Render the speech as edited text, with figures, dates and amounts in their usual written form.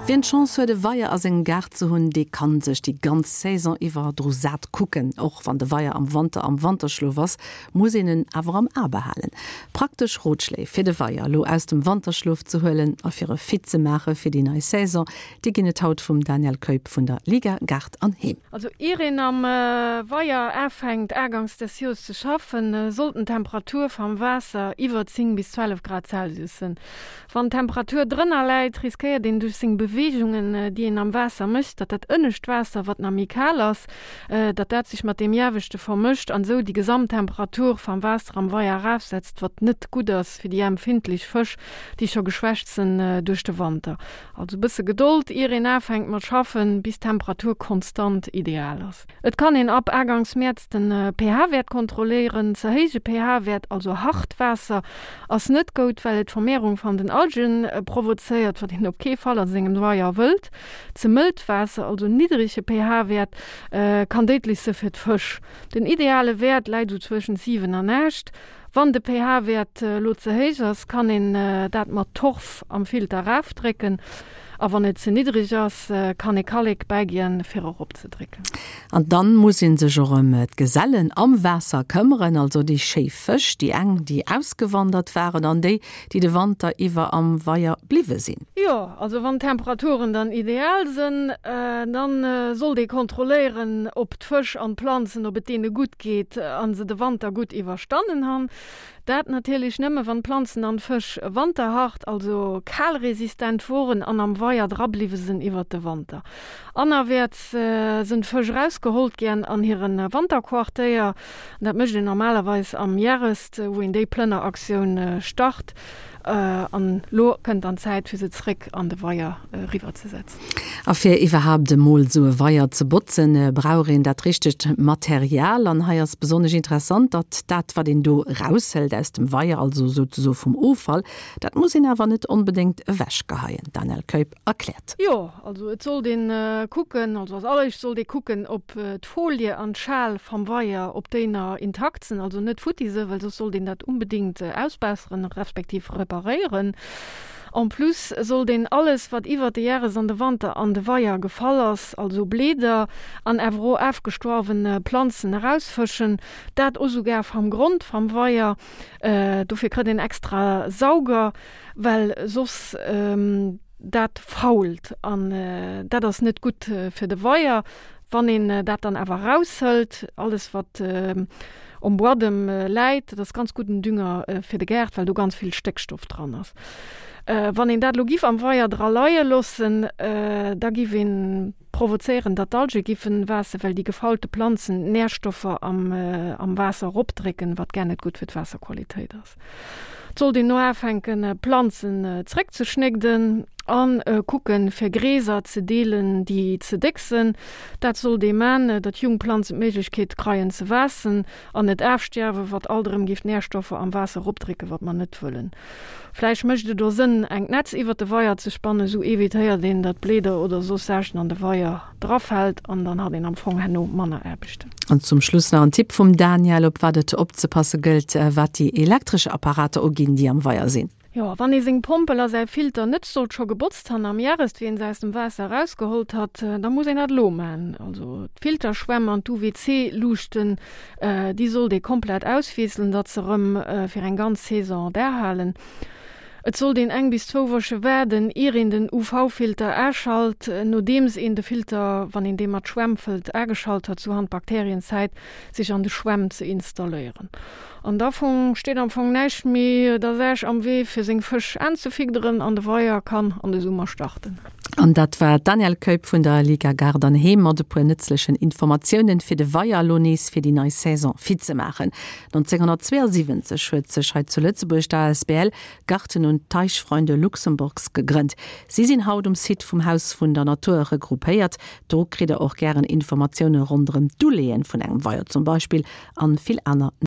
Wien d'Chance huet e Weier a sengem Gaart ze hunn, dee kann sech déi ganz Saison iwwer dru sat kucken. Och wann de Weier am Wanter am Wanterschlof ass, muss een en awer am A behalen. Praktesch Rotschléi fir de Weier elo aus dem Wanterschlof ze huelen a fir e fit ze maache fir déi nei Saison, déi ginn et haut vum Daniel Keup vun der Liga Gaart an Heem. Also ier een am Weier aafänkt agangs des Joers ze schaffen, sollt den Temperatur vam Waasser iwwer 10 bis 12 Grad Celsius sen. Wann d'Temperatur drënner läit, riskéiert een duerch seng Beweegungen, déi een am Waasser mécht, datt dat ënnescht Waasser, wat nach méi kal ass, datt dat sech mat deem ieweschte vermëscht an esou déi Gesamttemperatur vam Waasser am Weier erafsetzt, wat net gutt ass fir déi empfindlech Fësch, déi scho geschwächt sen duerch de Wanter. Also bësse Gedold, ier een aafänkt mat schaffen, bis d'Temperatur konstant ideal ass. Et kann een ab Agangs Mäerz den pH-Wäert kontrolléieren. Ze héije pH-Wäert, also hart Waasser, ass net goud, well et d'Vermehrung van den Algen provozéiert, wat een op kee Fall a sengem Weier wëllt. Ze mëllt Waasser, also niddrege pH-Wäert, kann déidlech se fir d'Fësch. Den ideale Wäert läit sou zwëschent 7 an 8. Wann de pH-Wäert lo ze héich ass, kann een dat mat Torf am Filter erafdrécken. A wann et ze niddreg ass, kann ee Kallek bäigien, fir eropzedrécken. An dann muss een sech och ëm d'Gesellen am Waasser këmmeren, also déi schéi Fësch, déi eng, déi ausgewandert waren an déi, déi de Wanter iwwer am Weier bliwwe sinn. Jo, also wann d'Temperaturen dann ideal sënn, dann sollt ee kontrolléieren, ob d'Fësch an d'Planzen, ob et deene gutt geet an se de Wanter gutt iwwerstannen han. Dat natierlech nëmme wann d'Planzen an d'Fësch wanterhart, also kalresistent woren an am Weier dra bliwwe sënn iwwert de Wanter. Anerwäerts sënn d'Fësch erausgehollt gären an hiren Wanterquartéier. Dat mécht een normalerweis am Järest, wou een déi Plënneraktioun start. An lo kënnt dann d'Zäit fir se zréck an de Weier riwwer ze setzen. A fir iwwerhaapt emol esou e Weier ze botzen, brauch een dat richtegt Material. An hei ass besonnesch interessant, datt dat wat een do eraushëlt aus dem Weier, also souzesoe vum Offall, dat muss een awer net onbedéngt ewechgeheien. D'Danièle Keup erkläert. Jo, also et sollt een kucken, also als alleréischt sollt ee kucken, ob d'Folie an d'Schal vam Weier, ob déi na intakt sen, also net futti se, well soss sollt een dat unbedingt ausbesseren, respektiv reparéieren. En plus sollt een alles wat iwwert de Järres an de Wanter an de Weier gefall ass, also Bleeder an awer o aafgestoarwen Planzen erausfëschen, dat o sougar vam Grond vam Weier. Dofir krëtt een extra Sauger, well soss dat fault an dat ass net gutt fir de Weier. Wann een dat dann awer eraushëlt, alles wat um Buadem läit, dat ass ganz gudden Dünger fir de Gaart, well do ganz vill Stéckstoff dran ass. Wann een dat elo giff am Weier dra leie loossen, da giff een provozéieren, datt d'Alge giffen waassen, well déi gefaulte Planzen d'Närstoffer am Waasser eropdrécken, wat gar net gutt fir d'Waasserqualitéit ass. Et sollt een no aafänken Planzen zréck ze schnégden an kucken fir Gräser ze deelen déi ze déck sen. Dat sollt ee maan, datt jung Planzen d'Méiglechkeet kreien ze waassen an net aafstierwen, wat alt erëm giff d'Nährstoffer am Waasser eropdrécken, wat mer net wëllen. Vläicht mécht et o Sënn engt Netz iwwert de Weier ze spannen, sou evitéiert een datt Bléeder oder soss Saachen an de Weier drafällt an dann hat een am Fong herno manner Aarbechten. An zum Schluss nach en Tipp vum Daniel, op wat et opzepasse gëllt, wat déi elektresch Apparater uginn, déi am Weier sinn. Jo, wann ee seng Pompel a säi Filter net sollt scho gebotzt han am Järest, wéi een se aus dem Waasser erausgehollt hat, da muss een dat elo man. Also d'Filterschwämm an d'UVC-Luuchten, déi sollt ee komplett auswiesselen, datt se erëm fir eng ganz Saison derhalen. Et sollt een eng bis zwou Woche waarden, ier een den UV-Filter aschalt. Nodeems een de Filter, wann een dee mat Schwämm fëllt, ageschalt hat, sou han d'Bakterien Zäit, sech an de Schwämm ze installéieren. An da fong steet am Fong näischt méi der Saach am Wee, fir seng Fësch aanzefidderen an de Weier kann an de Summer starten. An dat war d'Danièle Keup vun der Liga Gaart an Heem mat e puer nëtzlechen Informatiounen, fir de Weier elo nees fir déi nei Saison fit ze maachen. 1972 huet sech hei zu Lëtzebuerg d'ASBL Garten und Teichfreunde Luxemburgs gegrënnt. Si sinn haut um Site vum Haus vun der Natur regroupéiert. Do kritt der och gären Informatioune ronderëm d'Uleeën vun engem Weier zum Beispill an vill aner.